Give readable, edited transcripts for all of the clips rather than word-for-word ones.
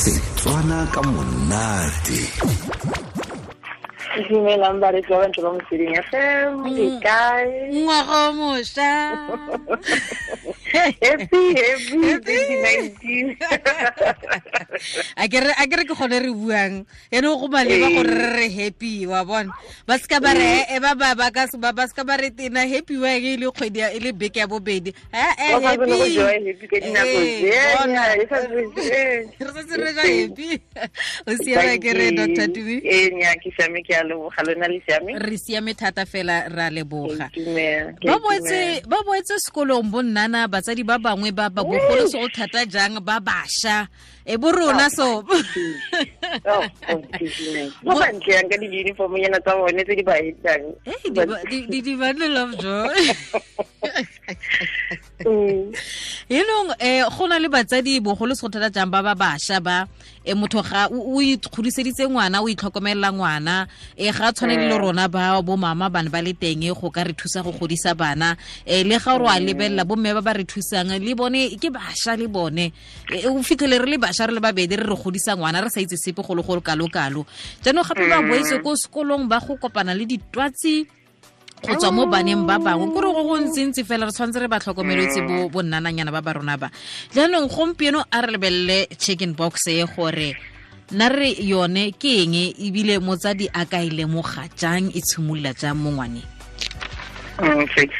Setswana ka monate. Dumelang baretsi ba bantle ba Motsweding FM, le kae? Ngwaga o mošwa. Happy, happy 2019. A ke re ke gone re buang ene go maleba gore re re happy, wa bona. Ba seka ba re e ba ba ba ka ba seka ba re tena happy wa e le kgwedi e le beke ya bobedi. Happy. Happy ka dinako tse. Re setse re ja happy. O siame ke re Dr. Tumi? Ee, nya ke siame, ke a leboga, lona le siame? Re siame thata fela, ra leboga. Ba boetse sekolong bo nnana, batsadi ba bangwe ba ba bogolo se go thata jang ba basha e bo rona so. Ba bantle yang ka di-uniform nyana tsa bone tse di ba etsang. Di bundle of joy. Enong go na le batsadi bogolo se go thata jang ba ba basha ba motho ga o ikgodiseditse ngwana, o itlhokomelela ngwana, ga tshwane le rona ba bo mama bana ba le teng go ka re thusa go godisa bana, le ga re a lebelela bo mme ba ba re thusang le bone ke basha le bone, o fitlhele re le basha re le babedi re re godisa ngwana re sa itse sepe go le go kalo-kalo. Jaanong gape ba boetse ko sekolong ba go kopana le ditwatsi go tswa mo baneng ba bangwe, kore go go ntsintsi fela re tshwanetse re ba tlhokomeletse bo nnananyana ba ba rona ba. Jaanong gompieno a re lebelele chicken box e gore nna re yone ke eng, ebile motsadi a ka e lemoga jang, e tshimolola jang mo ngwaneng? Okay.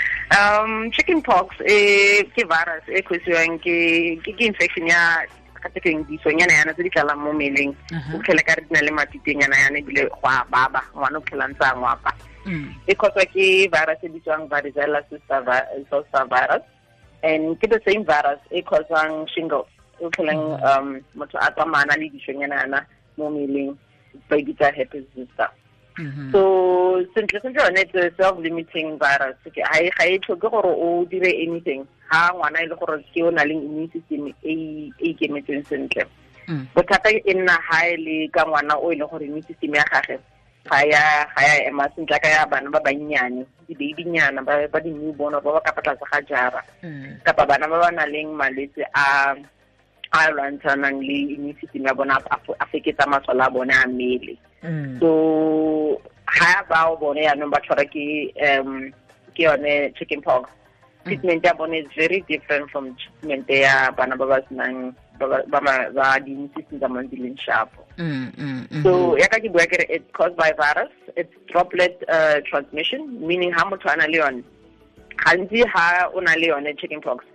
Chicken pox ke virus e causiwang ke infection ya ka disonyana yana tse di tlalang mo mmeleng. O tlhele ka re di na le matitenyana yana ebile go a baba, ngwana o tlhela ntse a ngwapa. E causwa ke virus e bitswang varicella zoster virus, and ke the same virus e causang shingles, o tlheleng motho a tsamaya le disonyana yana mo mmeleng, ba e bitsa herpes zoster. So sentle sentle yone it's a self-limiting virus. Ga e tlhoke gore o dire anything ha ngwana e le gore ke o na le immune system e ikemetseng sentle. Bothata e nna ha e le ka ngwana o e leng gore immune system ya gagwe ga ya ema sentle ka ya bana ba bannyane, di-babynyana ba di-newborn ba ba ka fa tlase ga jara, kapa bana ba ba nang le malwetse a lwantshanang le immune system ya bona, a feketsa masole a bone a mmele. So ha bao bone yaanong ba tshwara ke yone chicken pox, treatment ya bone is very different from treatment ya bana ba ba senang ba di-immune system tsa bone di leng sharp. So ya ka ke bua ke re it's caused by virus, it's droplet transmission, meaning ha motho a na le yone, gantsi ha o na le yone chicken pox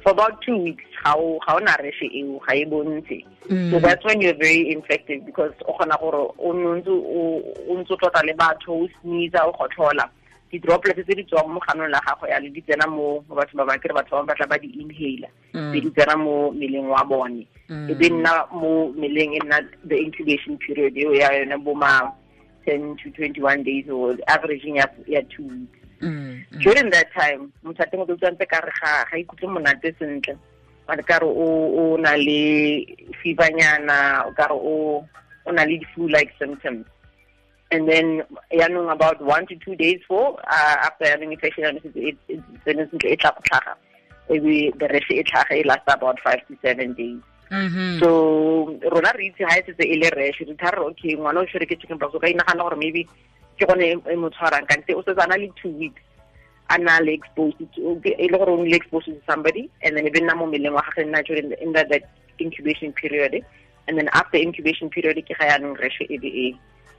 for about 2 weeks ga o na rash eo, ga e bontshe. So that's when you're very infected, because o kgona gore o ntse o tlotla le batho, o sneeze, o gotlhola, di-droplets tse di tswang mo ganong la gago ya le di tsena mo batho ba bangwe, batho ba batla ba di-inhaler, be di tsena mo mmeleng wa bone, e be nna mo mmeleng e nna the incubation period eo ya yone bo ma 10 to 21 days or averaging ya 2 weeks. During that time motho a teng o tlo ntse ka re ga ikutlwe monate sentle, ba ka re o na le fevernyana, o ka re o na le flu-like symptoms. And then yaanong about 1 to 2 days for after having infection, e tla go tlhaga, ebe the rash e tlhaga, e last about 5 to 7 days. So rona re itse ha e setse e le rash, re thare okay ngwana o tshwere ke chicken pox, o ka inagana gore maybe ke gone e mo tshwarang, kante o setse a na le 2 weeks a na le exposed to, e le gore o nile exposed to somebody, and then e be nna mo mmeleng wa gagwe nna during in that incubation period, and then after incubation period ke ga yaanong rash e be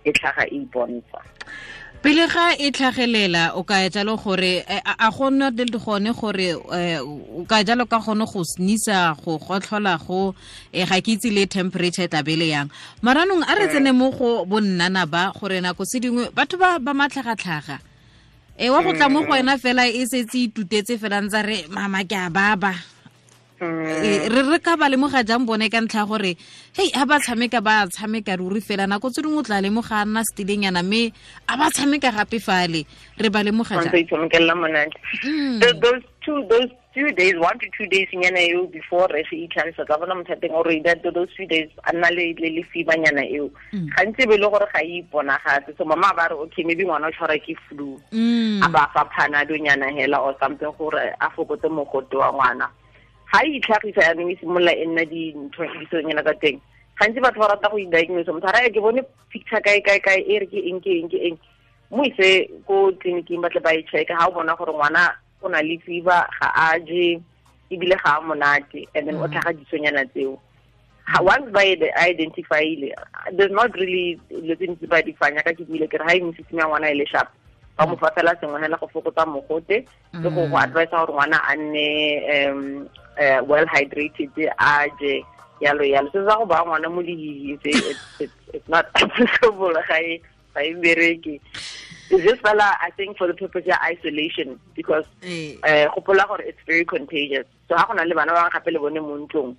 e tlhaga e ipontsha. Pele ga e tlhagelela o ka jalo gore a gona le gone gore o ka jalo ka gone go sneeza, go gotlhola, go ga ke itse le temperature tla bele yang. Maranong a re tsene mo go bonnana ba gore nako se dingwe batho ba ba matlhagatlhaga wa go tla mo go wena fela e setse itutetse fela ntse re mama ke a baba. Re ka ba lemoga jang bone ka ntlha gore hei ha ba tshameka ruri fela nako tse dingwe o tla lemoga a nna setileng mme a ba tshameka gape fale, re ba lemoga jang? Those 2 days, 1 to 2 days nyana eo before rash e itlhagisa, tla bona motho a teng ore those 2 days a nna le fever nyana eo, gantsi be le gore ga e iponagatse. So mama ba re okay maybe ngwana o tshwara ke flu, a ba fa panado nyana hela or something gore a fokotse mogote wa ngwana. Ha e itlhagisa yaanong e simolola e nna dintho disonyana tsa teng, Gantsi batho ba rata go i-diagnose, motho a raya ke bone picture kae kae kae e re ke eng ke eng ke eng. Mo ise ko tleliniking ba tle ba e check ha o bona gore ngwana o na le fever, ga a je ebile ga a monate, and then o tlhaga disonyana tseo. Once ba identify-ile, there's not really dilo tse ntsi ba di fanya ka ke buile ke re ha immune system ya ngwana e le sharp, ba mo fa fela sengwe hela go fokotsa mogote le go advise gore ngwana a nne well hydrated, a je yalo yalo. Se sa go ba ngwana mo lehihing se it's not applicable, ga e bereke. It's just fela I think for the purpose ya isolation, because gopola gore it's very contagious. So ha go na le bana ba gape le bone mo ntlong,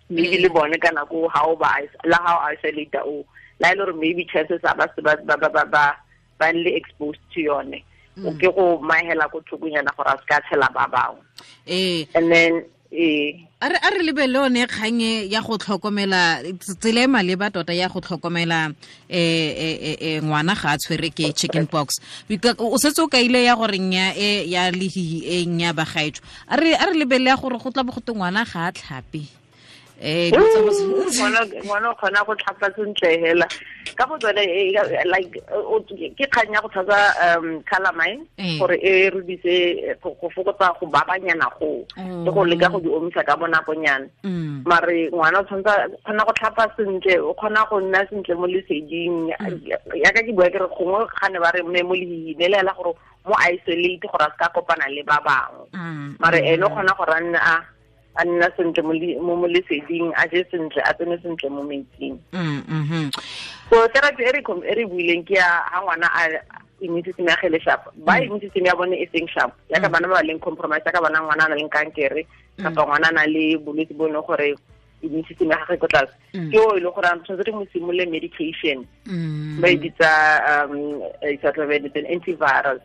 maybe le bone ka nako ha o ba la ha o isolate o la ile gore maybe chances are ba ba ba le exposed to yone, o ke go mahela go thokonyana gore a se ka tshela ba bangwe. And then a re lebele one kgang ya go tlhokomela tsela e maleba tota ya go tlhokomela ngwana ga a tshwere ke chicken pox. O setse o kaile ya gore nya e ya lehihi e nya bagaetsho. A re lebele ya gore go tla bo go te ngwana ga a tlhape. Ngwana o kgona go tlhapa sentle hela ka go tsone, like ke kgang ya go tshasa calamine gore e rudise go fokotsa go babanyana go le go leka go di omisa ka bonakonyana. Mare ngwana o tshwanetse kgona go tlhapa sentle, o kgona go nna sentle mo leseding. Yaka ke bua ke re gongwe ga ne ba re mme mo lehihing le hela gore mo isolate gore a se ka kopana le ba bangwe, mare ene o kgona gore a nne a nna sentle mo leseding, a je sentle, a tsene sentle mo metsing. So therapy e re buileng ke ya ha ngwana a immune system ya gele sharp, ba immune system ya bone e seng sharp, yaka bana ba leng compromise, yaka bana ngwana a na leng kankere kapa ngwana a na le bolwetse bo e leng gore immune system ya gagwe ko tlase, ke o e leng gore a tshwanetse re mo simolole medication ba e bitsa antivirus,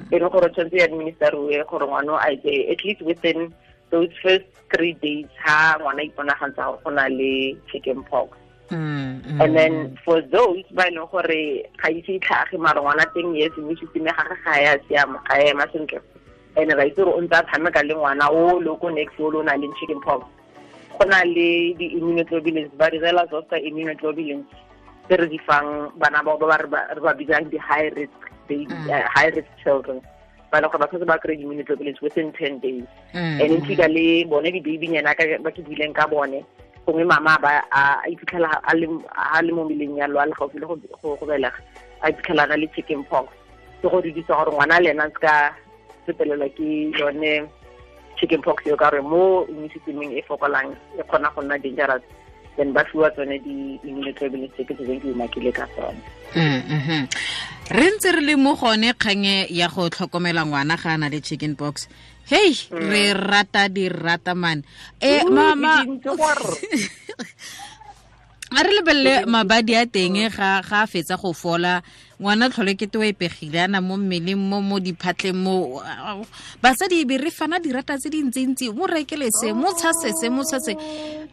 e leng gore tshwanetse e administeriwe gore ngwana a e at least within those first 3 days ha ngwana iponagantsa gore go na le chicken pox. And then for those ba e leng gore ga ise e tlhage mare ngwana teng yes immune system ya gagwe ga ya siama, ga ya ema sentle, and ra itse gore o ntse a tshameka le ngwana o le ko next o le o na leng chicken pox, go na le di-immunoglobulins, ba direla zoster immunoglobulins tse re di fang bana bao ba re ba bitsang di-high risk baby, high risk children, ba leng gore ba tshwanetse ba kry immunoglobulins within 10 days. And in fika le bone di-babynyana ba ke buileng ka bone, gongwe mama ba a iphitlhela a le mo mmeleng yalo, a le gaufi le go belega, a iphitlhela a na le chicken pox, ke go didisa gore ngwana le ena a se ka sepelelwa ke yone chicken pox eo, ka gore mo immune systemeng e fokolang e kgona go nna dangerous. Then ba fiwa tsone di-immunoglobulins tse ke tseng ke umakile ka tsone. Re ntse re le mo gone kgang ya go tlhokomela ngwana ga a na le chicken pox. Hey, re rata di rata man. Mama, a re lebelele mabadi a teng ga a fetsa go fola, ngwana tlhole ke te o epegile ana mo mmeleng mo diphatleng mo basadi be re fana dirata tse dintsintsi, mo rekele se, mo tshase se, mo tshase.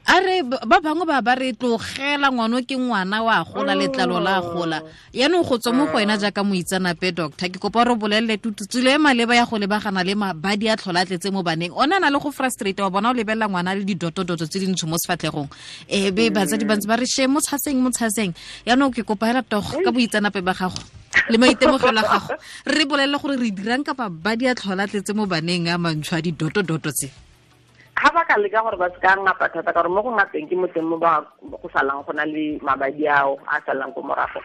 A re ba bangwe ba ba re tlogela ngwana ke ngwana wa gola, letlalo la gola. Yaanong go tswa mo go wena jaaka moitseanape doctor, ke kopa re bolelele tututsile e maleba ya go lebagana le mabadi a tlhola tletse mo baneng. O na le go frustrate wa bona o lebelela ngwana le didotodoto tse dintsho mo sefatlhegong, be batsadi ba ntse ba re she mo tshaseng mo tshaseng. Yaanong ke kopa hela togo ka boitseanape ba gago le maitemogelo a gago, re bolelele gore re dirang kapa mabadi a tlhola tletse mo baneng a mantsho a didotodoto tse. Ga ba ka leka gore ba se ka ngapa thata, ka gore mo go ngapeng ke mo teng mo ba go salang go na le mabadi ao a salang ko morago.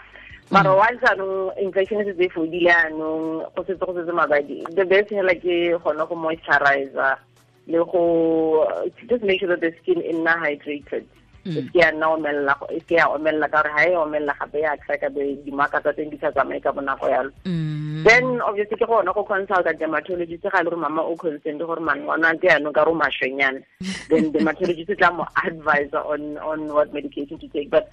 Mara wa jaanong infection e setse e fodile anong, go setse mabadi. The best hela ke gone go moisturizer le go just make sure that the skin e nna hydrated. E se ya nna omelela, e se ya omelela, ka gore ha e omelela gape ya crack-a be dimaka tsa teng di sa tsamaye ka bonako yalo. Then obviously ke gona go consulta dermatologist ga e le gore mama o concerned gore man ngwana ke yanong ka re o mashwenyana, then dermatologist tla mo advise on what medication to take. But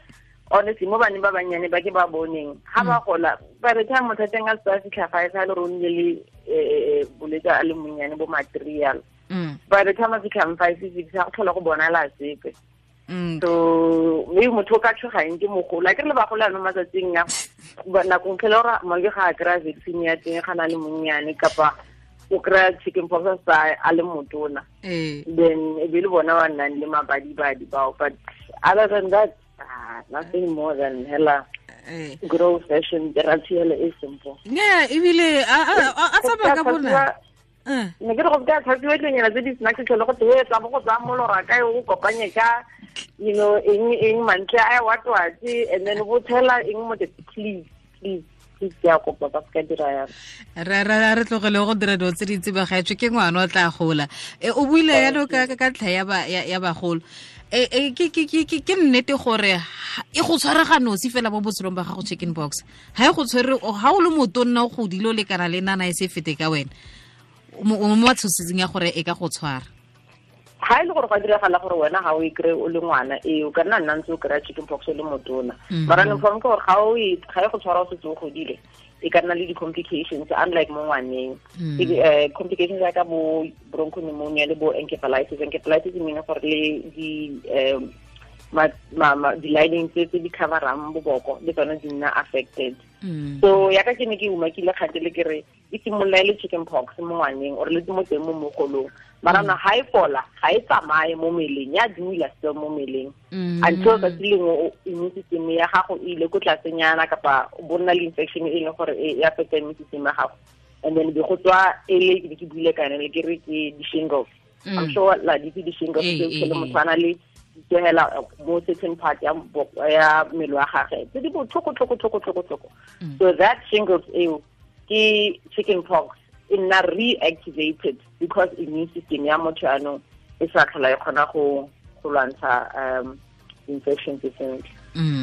honestly mo baneng ba bannyane ba ke ba boneng ga ba gola, by the time motho a teng a se a fitlha fa e sa le gore o nnile le bolwetse a le monnyane bo material, by the time a fitlhang 5 6 ga go tlhola go bonala sepe. So maybe motho o ka tshogang ke mogolo, a ke re le bagolo ano matsatsing a nakong tlhele gore mangwe ga a kry-a vaccine ya teng ga na le monnyane, kapa o kry-a chicken pox a sa a le motona, then e be le bona ba nnang le mabadibadi bao. But other than that, Nothing more than hela grow fashion ratiele e simple. Yeah, ebile a tsamaya ka bona. Ne ke re go ka tlhatsiwa dilonyana tse di snacks tlhole go te tsa bo go tsaya molora kae o kopanye ka you know eng mantle a wa twatse and then bo tshela eng mo te please please please ke a kopa ba ka dira ya re tlogele go dira dilo tse dintsi ba gaetswe ke ngwana o tla gola. O buile yalo ka ntlha ya bagolo. Ke nnete gore e go tshwarega nosi fela mo botshelong ba gago chicken box ha e go tshwere ha o le motonna o godile o lekana le nana e se fete ka wena o mo tshosetseng ya gore e ka go tshwara. Ha e le gore go diragala gore wena ga o e kry o le ngwana ee o ka nna ntse o kry-a chicken pox o le motona mara ne form ke gore ga e go tshwara o setse o godile e ka nna le di-complications unlike mo ngwaneng. Complications jaaka bo bronchopneumonia le bo encephalitis. Encephalitis e meaning gore le di-lining tse di coverang boboko le tsone di nna affected. So yaka ke ne ke umakile kgante le ke re e simolola e le chicken pox mo ngwaneng or le mo teng mo mogolong mara na ha e fola ga e tsamaye mo mmeleng ya dula still mo mmeleng until tsatsi lengwe immune system ya gago e ile ko tlasenyana kapa bo nna le infection e leng gore e affecta immune system ya gago and then be go tswa e le ke buile ka yone le ke re ke di-shingles. I'm sure la di di-shingles tse le motho a na le hela mo certain part ya mmele wa gagwe tse di botlhoko tlhoko tlhoko tlhoko tlhoko. So that shingles eo ke chicken pox e nna reactivated because immune system ya motho yaanong e sa tlhola e kgona go lwantsha infection tse sentle.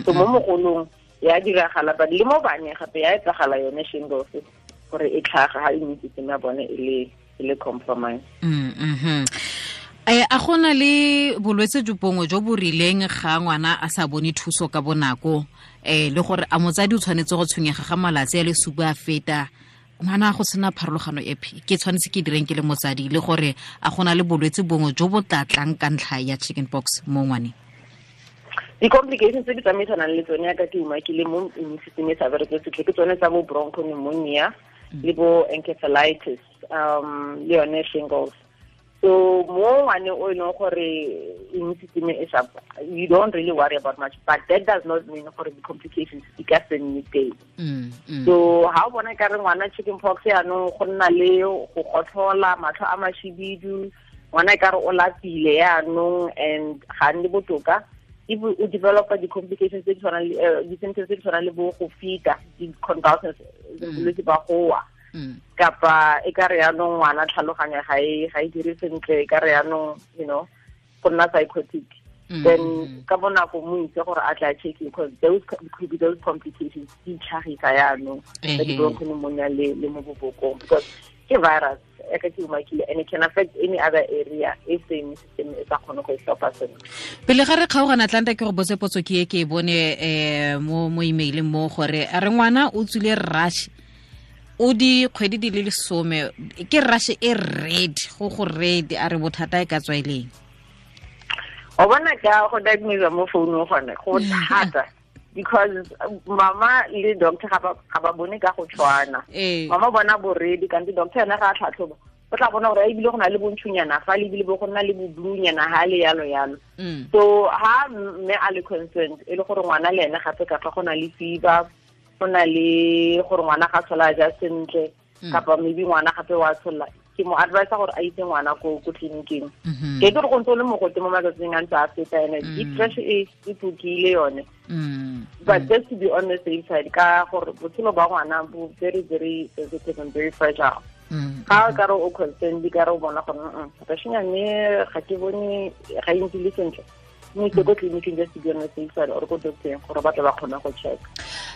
So mo mogolong ya diragala but le mo baneng gape ya etsagala yone shingles gore e tlhaga ha immune system ya bone e le compromise. A gona le bolwetse jo bongwe jo bo rileng ga ngwana a sa bone thuso ka bonako le gore a motsadi o tshwanetse go tshwenyega ga malatsi a le supa a feta ngwana go sena pharologano epe ke tshwanetse ke direng ke le motsadi le gore a gona le bolwetse bongwe jo bo tlatlang ka ntlha ya chicken pox mo ngwaneng? Di-complications tse di tsamaisanang le tsone yaka ke umakile mo immune system e sa bereke sentle ke tsone tsa bo bronchopneumonia le bo encephalitis le yone shingles. So mo ngwaneng o e leng gore immune system e sa, you don't really worry about much, but that does not mean gore di-complications di ka se nne teng. So ha o bona ka re ngwana chicken pox yaanong go nna le go gotlhola, matlho a mashibidu, ngwana e ka re o lapile yaanong and ga nne botoka, if o developa di-complications tse di tshwanang le di-symptoms tse di tshwanang le bo go fita, di-convulsions, bolwetse ba go wa. Kapa e ka re yaanong ngwana tlhaloganya ga e dire sentle, e ka re yaanong you know go nna psychotic, then ka bonako mo itse gore a tla check because those could be those complications di tlhagisa yaanong tsa di-bronchopneumonia le mo bobokong because ke virus e ka ke umakile and it can affect any other area e same system e sa kgone go e tlhopha sentle. Pele ga re kgaogana Atlanta ke go botse potso ke e ke e bone mo emaileng mo gore a re ngwana o tswile rash o di kgwedi di le 10 ke rash e red go red a re bothata e ka tswa eleng. O bona ka go diagnose mo founung gone go thata because mama le doctor ga ba bone ka go tshwana. Mama bona bo red kante doctor ena ga a tlhatlhoba o tla bona gore ebile go na le bontšhunyana fa le ebile bo go nna le boblunyana ha le yalo yalo. So ha mme a le concerned e le gore ngwana le ene gape ka fa go na le fever, go na le gore ngwana ga tshola ja sentle kapa maybe ngwana gape wa tshola, ke mo advise gore a itse ngwana ko tleliniking. Ke itse gore go ntse o le mogote mo matsatsing a ntse a feta ene di-fresh e tlokile yone. But just to be on the safe side ka gore botshelo ba ngwana bo very very sensitive and very fragile. Ga o ka re o concerned ka re o bona gore rashnyane ga ke bone ga e ntse le sentle, mme itse ko tleliniking just to be on the safe side or ko doctoreng gore ba tle ba kgone go check.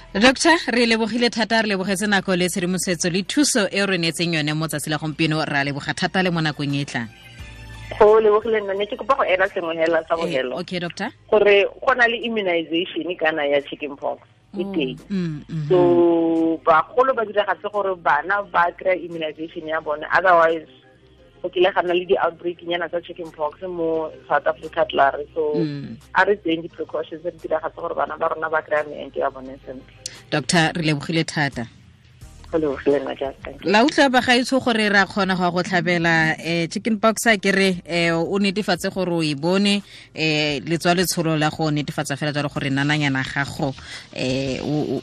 Doctor, re lebogile thata, re lebogetse nako le tshedimosetso le thuso e re neetseng yone mo tsatsi la gompieno, ra leboga thata le mo nakong e tlang. Go lebogile nna, ne ke kopa go ela sengwe hela sa bogelo. Okay doctor. Gore go na le immunization kana ya chicken pox e teng. So bagolo ba diragatse gore bana ba kry immunization ya bone, otherwise go kile ga nna le di-outbreak nyana tsa chicken pox mo South Africa tlare. So a re tseyeng di-precautions re diragatse gore bana ba rona ba kry-a meento ya bone sentle. Doctor, re lebogile thata. La utlwa bagaetsho gore ra kgona go go tlhabela chicken pox a ke re o netefatse gore o e bone letswa letsholo la go netefatsa fela jalo gore nananyana gago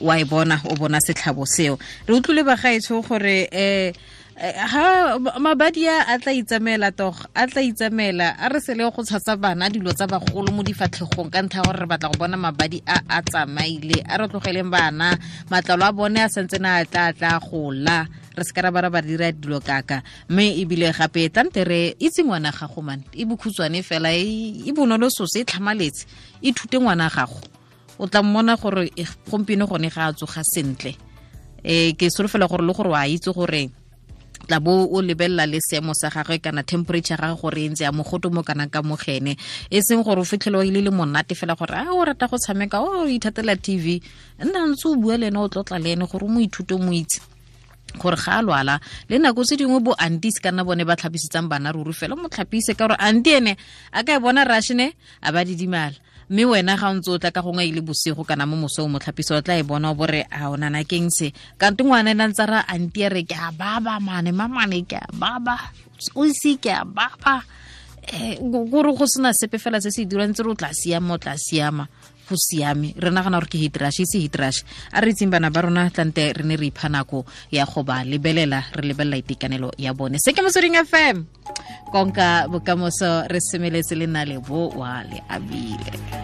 wa e bona o bona setlhabo seo. Re utlwile bagaetsho gore ha mabadi a tla itsamela tog a tla itsamela a re sele go tshasa bana dilo tsa bagolo mo difatlhegong ka ntlha gore re batla go bona mabadi a a tsamaile. A re tlogeleng bana matlalo a bone a santse na a tla gola re se ka ra ba dira dilo kaka. Mme ebile gape tlante re itse ngwana gago man e bokhutshwane fela e bonolo sose e tlhamaletse ithute ngwana gago o tla mmona gore gompieno gone ga a tsoga sentle. Ke solofela gore le gore wa itse gore tla bo o lebella le seemo sa gagwe kana temperature gagwe gore e ntse ya mogoto mo kana ka mogene e seng gore o fitlhele o ile le monate fela gore a o rata go tshameka o ithatela TV nna ntse o bua le ene o tlotla le ene gore o mo ithute o mo itse gore ga a lwala. Le nako tse dingwe bo aunties kana bone ba tlhapisetsang bana ruri fela mo tlhapise ka gore auntie ene a ka e bona rashne a ba didimala mme wena ga o ntse o tla ka gongwe ile bosigo kana mo mosong mo tlhapiso o tla e bona o bore a o nana keng se kante ngwana ena ntse ra auntie re ke a baba mane mamane ke a baba o se ke a baba gore go sena sepe fela se se dirang tse re o tla siama o tla siama go siame. Re nagana gore ke heat rush e se heat rush. A re itseng bana ba rona tlante re ne re ipha nako ya go ba lebelela re lebelela itekanelo ya bone. Se ke Motsweding FM konka bokamoso re semeletse le nna le bo wa le abile.